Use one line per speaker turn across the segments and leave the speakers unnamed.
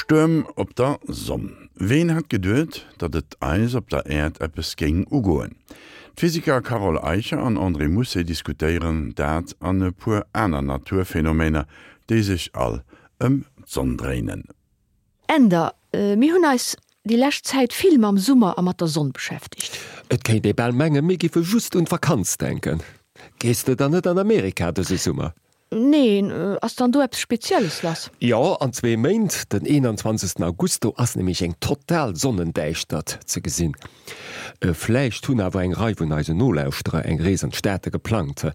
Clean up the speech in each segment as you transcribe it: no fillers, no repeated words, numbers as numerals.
Stuerm op der Sonn. Ween hätt geduet, datt et eis op der Äerd eppes géing ugoen? D'Physiker Carole Eicher an André Mousset diskutéieren dat an e puer aner Naturphenomener, déi sech all ëm d'Sonn dréinen.
Änder, Mir hunn eis déi lescht Zäit vill mam Summer a mat der Sonn beschäftegt.
Et kéint ee bal mengen, mir giffe just un d'Vakanz denken. Gees de dann net an Amerika dëse Summer?
Neen, ass dann do eppes Spezielles lass?
Jo, an zwee Méint, den 21 August, do ass nämlech eng total Sonnendäischtert ze gesinn. Vläicht hunn awer eng Rei vun eisen Nolauschterer eng Rees an d'Staate geplangt.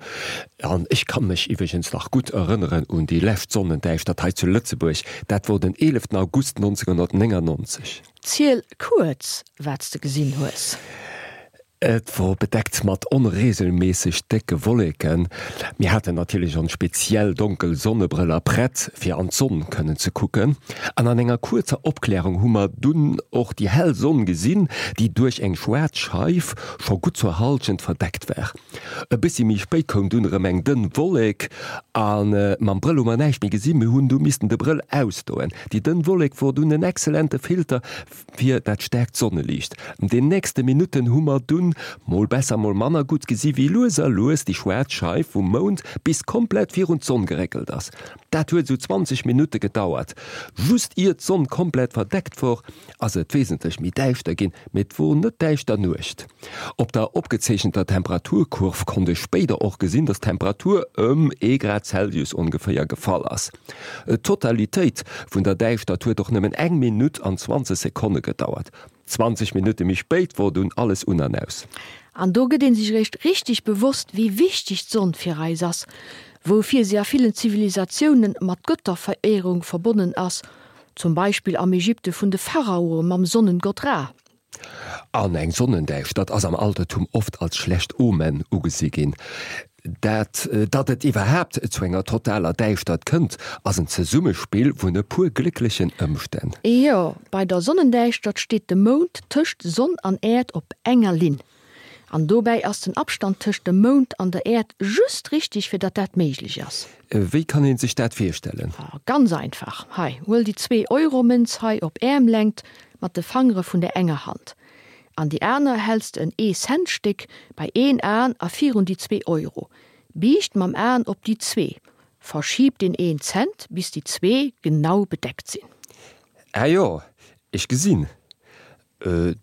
An ech kann mech iwwregens nach gutt erënneren un déi lescht Sonnendäischtert hei zu Lëtzebuerg, dat wor den 11 August 1999.
Ziel kuerz, wat s de gesinn hues.
Et wor bedeckt mat onregelméisseg décke Wolleken. Mir haten natierlech ons speziell donkel Sonnebrëller prett fir an d'Sonn kënnen ze kucken. An an enger kuerzer Opklärung hu mer dunn och déi hell Sonn gesinn, déi duerch eng schwaarz Scheif scho gutt zur Halschent verdeckt war. E bëssi méi spéit koum dunn erëm eng dënn Wollek a mam Brëll hu mer näischt méi gesinn. Mir hunn du missten de Brëll ausdoen. Déi dënn Wollek wor dunn en excellente Filter Fir dat staarkt Sonneliicht. An den nächste Minutten hu mer dunn, mol besser mol manner gutt, gesi wéi lues a lues déi schwaarz Scheif vum Mound bis komplett virun d'Sonn geréckelt ass. Dat huet esou 20 Minutte gedauert. Just ier d'Sonn komplett verdeckt wor, ass et wesentlech méi däischter ginn, mee et wor net däischter Nuecht. Op der opgezeechenter Temperaturkurv konnt ech spéider och gesinn, dass d'Temperatur ëm ee Grad Celsius ongeféier gefall ass. D'Totalitéit vun der Däischtert huet och nëmmen eng Minutt an 20 Sekonne gedauert. 20 Minutte méi spéit wor dunn alles un an aus.
An do gëtt een sech eréischt richteg bewosst, wéi wichteg d'Sonn fir eis ass, woufir si a villen Zivilisatiounen mat Götterveréierung verbonnen ass, zum Beispill am Ägypte vun de Pharaoe mam Sonnengott Ra.
An eng Sonnendäischtert ass am Altertum oft als schlecht Omen ugesi ginn. Dat, datt et iwwerhaapt zu enger totaler Däischtert kënnt, ass en Zesummespill vun e puer glécklechen Ëmstänn.
Jo, bei der Sonnendäischtert steet de Mound tëscht Sonn an Äerd op enger Linn. An dobäi ass den Abstand tëscht dem Mound an der Äerd just richteg, fir datt dat méiglech ass.
Wéi kann een sech dat virstellen?
Ganz einfach, hei, huel déi Zwee-Euro-Mënz hei op Äermlängt mat de Fangere vun der enger Hand. An déi aner häls de en Ee-Cent-Stéck bei een Aen a virun déi 2 Euro. Biicht mam Aen op déi zwee. Verschiib deen een Cent, bis déi zwee genau bedeckt sinn.
Ah jo, ech gesinn.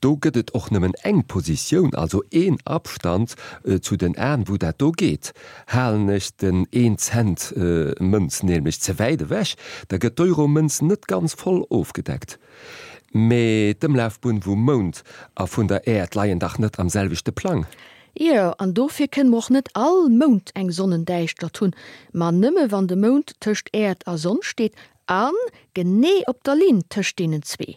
Do gëtt et och nëmmen eng Positioun, also een Abstand zu den Aen, wou dat do geet. Halen ech den een Cent Mënz nämlech ze wäit ewech, da gëtt d'Euro-Mënz net ganz voll ofgedeckt. Mee d'Ëmlafbunn vum Mound a vun der Äerd leien dach net am selwechte Plang?
Jo, an dofir kënne mer och net all Mount eng Sonnendäischtert hunn, ma nëmme wann de Mound tëscht Äerd a Sonn steet a genee op der Linn tëscht deenen zwee.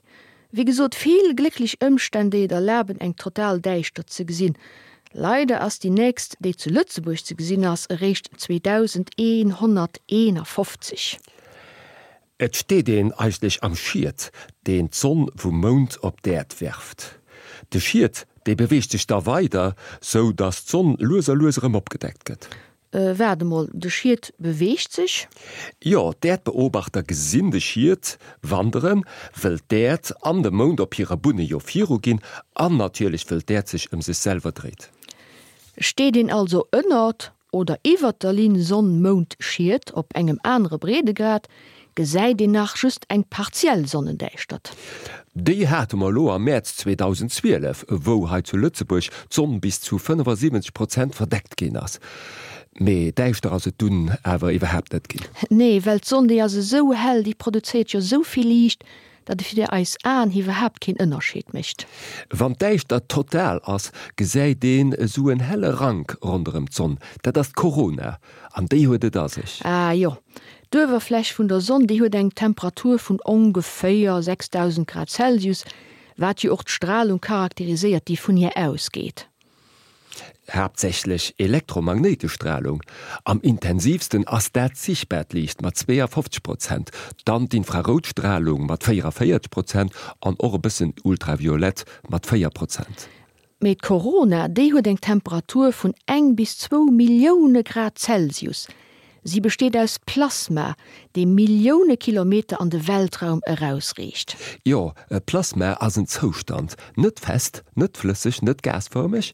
Wéi gesot, vill glécklech Ëmstänn, déi et erlaben, eng total Däischtert ze gesinn. Leider ass déi nächst, déi zu Lëtzebuerg ze gesinn ass, eréischt 2151.
Et steet een eigentlech am Schiet, deen d'Sonn vum Mound op d'Äerd werft. De Schiet, dee beweegt sech da weider, sou datt d'Sonn lues a lues erëm opgedeckt gëtt.
Waart emol, de Schiet beweegt sech?
Jo, d'Äerdbeobachter gesinn de Schiet wanderen, wëll d'Äerd an de Mound op hire Bunne jo viruginn an natierlech wëll d'Äerd sech ëm sech selwer dréit.
Steet een also ënnert oder iwwert der Linn Sonn-Mound-Schiet op engem anere Breedegrad, gesäit een nach just eng partiell Sonnendäischtert.
Déi hate mer elo am Mäerz 2012, wou hei zu Lëtzebuerg d'Sonn bis zu 75 Prozent verdeckt ginn ass. Mee däischter ass et dunn awer iwwerhaapt net ginn.
Nee, well d'Sonn déi ass esou hell, déi produzéiert jo esou vill Liicht, datt et fir eis Aen iwwerhaapt keen Ënnerscheed mécht.
Wann d'Däischtert total ass, gesäit een esou en helle Rank ronderëm d'Sonn. Dat ass d'Korona. An déi huet et a sech.
Ah jo, d'Uewerfläch vun der Sonn, déi huet eng Temperatur vun ongeféier 6000 Grad Celsius, wat jo och d'Stralung charakteriséiert, déi vun hir ausgeet.
Haaptsächlech elektromagnéitesch Stralung. Am intensiivsten ass dat sichtbaart Liicht mat 52 Prozent, dann d'Infraroutstralung mat 44 Prozent an och e bëssen Ultraviolett mat 4 Prozent.
Mee d'Korona, déi huet eng Temperatur vun eng bis zwou Millioune Grad Celsius. Si besteet aus Plasma, dee Millioune Kilometer an de Weltraum erausreecht.
Jo, e Plasma ass en Zoustand, net fest, net flësseg, net gasfërmeg,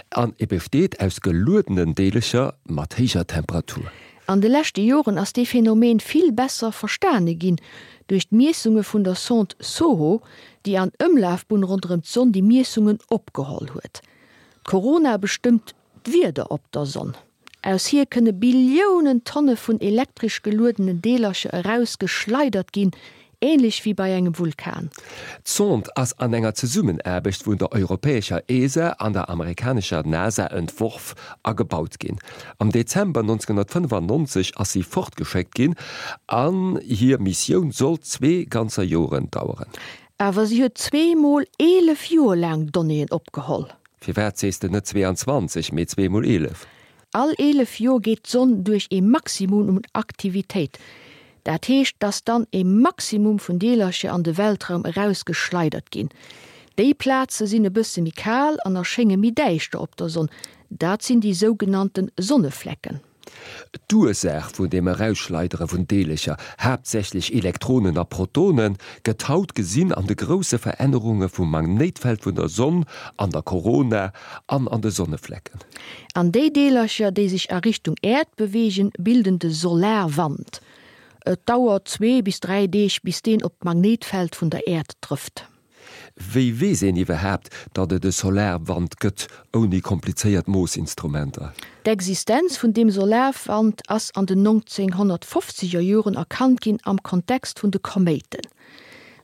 an e besteet aus geluedenen Deelecher mat héijer Temperatur.
An de leschte Joren ass dee Phänomen vill besser verstane ginn duerch d'Miessunge vun der Sonde SOHO, déi an Ëmlafbunn ronderëm d'Sonn déi Miessungen opgeholl huet. D'Korona bestëmmt d'Wieder op der Sonn. Aus hir kënne Billiounen Tonne vun elektresch geluedenen Deelercher eraus geschleidert ginn, änlech wéi bei engem Vulkan.
D'Sonde ass an enger Zesummenaarbecht vun der europäescher ESA an der amerikanescher NASA entworf a gebaut ginn. Am Dezember 1995 ass si fortgeschéckt ginn an hir Missioun sollt zwee ganzer Joren daueren.
Awer si huet zweemol 11 Joer laang Donnéeën opgeholl.
Firwat sees de net 22, mee zweemol 11?
All 11 Joer geet d'Sonn duerch ee Maximum un Aktivitéit. Dat heescht, dass dann ee Maximum vun Deelercher an de Weltraum erausgeschleidert ginn. Déi Plaze sinn e bësse méi kal an erschénge méi däischter op der Sonn. Dat sinn déi sougenannte Sonneflecken.
D'Ursaach vun dem Erausschleidere vun Deelecher, haaptsächlech Elektronen a Protonen, gëtt haut gesinn an de grousse Verännerunge vum Magnéitfeld vun der Sonn, an der Korona an an de Sonneflecken.
An déi Deelercher, déi sech a Richtung Äerd beweegen, bilden de Solarwand. Et dauert zwee bis dräi Deeg, bis deen op d'Magnéitfeld vun der Äerd trëfft.
Wéi weess een iwwerhaapt, datt et e Solarwand gëtt, ouni komplizéiert Moossinstrumenter?
D'Existenz vun deem Solarwand ass an den 1950er Joren erkannt ginn am Kontext vun de Koméiten.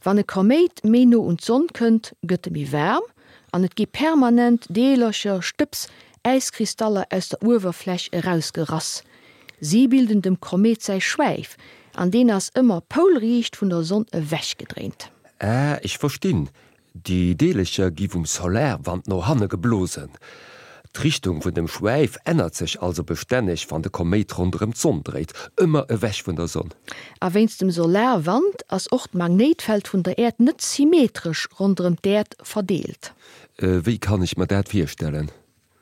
Wann e Koméit méi no un d'Sonn kënnt, gëtt e méi waarm an et gi permanent Deelercher, Stëbs, Äiskristaller aus der Uewerfläch erausgerass. Si bilden dem Koméit säi Schwäif an deen ass ëmmer poulriicht vun der Sonn ewechgedréint.
Ah, ech verstinn. Déi Deelecher gi vum Solarwand no hanne geblosen. D'Richtung vun dem Schwäif ännert sech also bestänneg, wann de Koméit ronderëm d'Sonn dréit, ëmmer ewech vun der Sonn.
A wéinst dem Solarwand ass och d'Magnéitfeld vun der Äerd net symmetresch ronderëm d'Äerd verdeelt.
Wéi kann ech mer dat virstellen?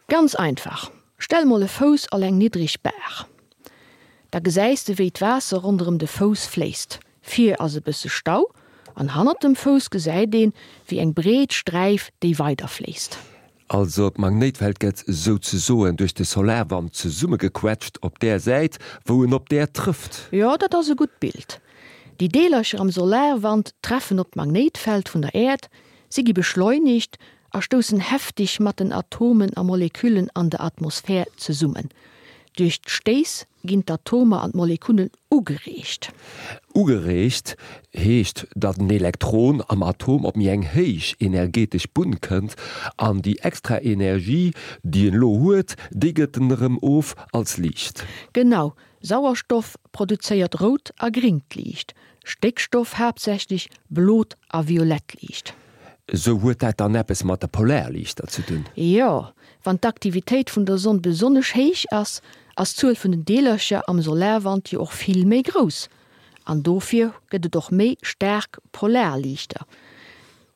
Ganz einfach, stell mol e Fouss al eng niddreg Baach. Da gesäis de wéi d'Waasser ronderëm de Fouss fléisst. Vir ass e bësse Stau an hannert dem Fouss gesäit een wéi eng breet Sträif déi weider fléisst.
Also d'Magnéitfeld gëtt souzesoen duerch de Solarwand zesummegequetscht op där Säit wou en op d'Äerd trëfft.
Jo, dat ass e gutt Bild. Déi Deelercher am Solarwand treffen op d'Magnéitfeld vun der Äerd, si gi beschleunigt a stoussen heftig mat den Atomen a Moleküllen an der Atmosphär zesummen. Duerch d'Stéiss ginn d'Atomer an d'Molekunnen ugereegt.
Ugereegt heescht, datt en Elektron am Atom op méi eng héich energetesch Bunn kënnt an déi extra Energie, déi en elo huet, déi gëtt en erëm of als Liicht.
Genau, Sauerstoff produzéiert rout a gringt Liicht, Stéckstoff haaptsächlech blot a violett Liicht.
Sou huet dat dann eppes mat de Polarliichter ze dun?
Jo, wann d'Aktivitéit vun der Sonn besonnesch héich ass, ass d'Zuel vun den Deelercher am Solarwand jo och vill méi grouss an dofir gëtt et och méi staark Polarliichter.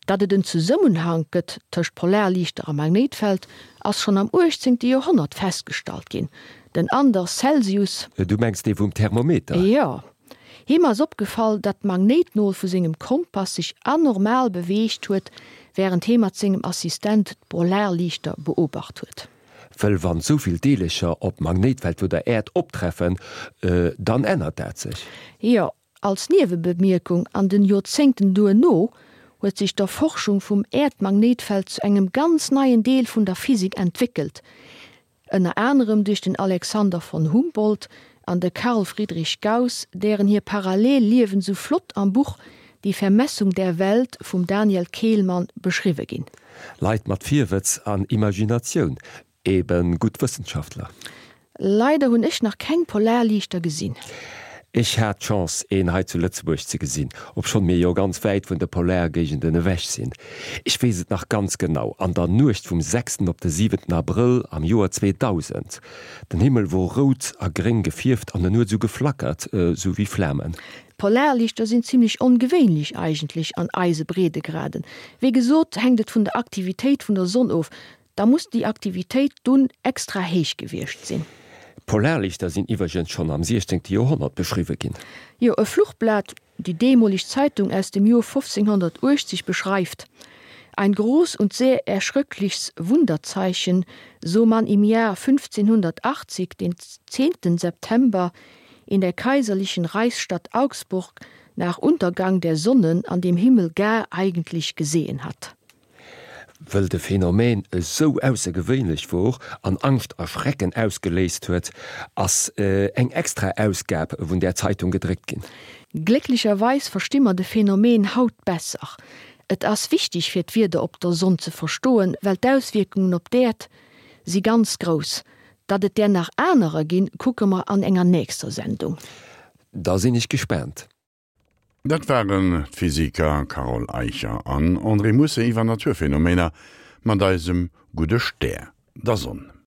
Datt et en Zesummenhank gëtt tëscht Polarliichter a Magnéitfeld ass schonn am 18. Joerhonnert festgestallt ginn. Den Anders Celsius.
Du mengs dee vum Thermometer?
Jo. Him ass opgefall, datt d'Magnéitnol vu sengem Kompass sech anormal beweegt huet, wärend hie mat sengem Assistent d'Polarliichter beobacht huet.
Wëll wann souvill Deelercher op d'Magnéitfeld vu der Äerd optreffen, dann ännert dat sech.
Jo, als Niewebemierkung, an den Joerzéngten duerno huet sech d'Erforschung vum Äerdmagnéitfeld zu engem ganz neien Deel vun der Physik entwéckelt, Ënner anerem duerch den Alexander von Humboldt an de Carl Friedrich Gauss, dären hir parallel Liewen sou flott am Buch Die Vermessung der Welt vum Daniel Kehlmann beschriwwe ginn.
Leit mat Virwëtz an Imaginatioun, eben gutt Wëssenschaftler.
Leider hunn ech nach keng Polarliichter gesinn.
Ech hat d'Chance een hei zu Lëtzebuerg ze gesinn, obschonn mir jo ganz wäit vun de Polargéigenden ewech sinn. Ech weess et nach ganz genau, an der Nuecht vum sechsten op de siwenten Abrëll am Joer 2000. Den Himmel wor rout a gréng gefierft an en huet esou geflackert, esou wéi Flamen.
D'Polarliichter sinn zimlech ongewéinlech eigentlech an eise Breedegraden. Wéi gesot hänkt et vun der Aktivitéit vun der Sonn of. Da muss déi Aktivitéit dunn extra héich gewiescht sinn.
Polarlichter sinn iwwergens schonn am 16. Joerhonnert beschriwwe ginn.
Jo, e Fluchblat, déi deemoleg Zeitung aus dem Joer 1580 beschreift, Ein groß und sehr erschröcklichs Wunderzeichen, so man im Jahr 1580, den 10. September, in der kaiserlichen Reichsstadt Augsburg nach Untergang der Sonne an dem Himmel gar eigentlich gesehen hat.
Wëll de Phänomen esou aussergewéinlech wor an Angscht a Schrecken ausgeléist huet, ass eng extra Ausgab vun där Zeitung gedréckt ginn.
Glécklecherweis versti mer de Phänomen haut besser. Et ass wichteg fir d'Wieder op der Sonn ze verstoen, well d'Auswierkungen op d'Äerd si ganz grouss. Datt et där nach anerer ginn, kucke mer an enger nächster Sendung.
Da sinn ech gespaant.
Dat waren d'Physiker Carole Eicher an André Musse iwwer Naturphänomener mat eisem gudde Stär, der Sonn.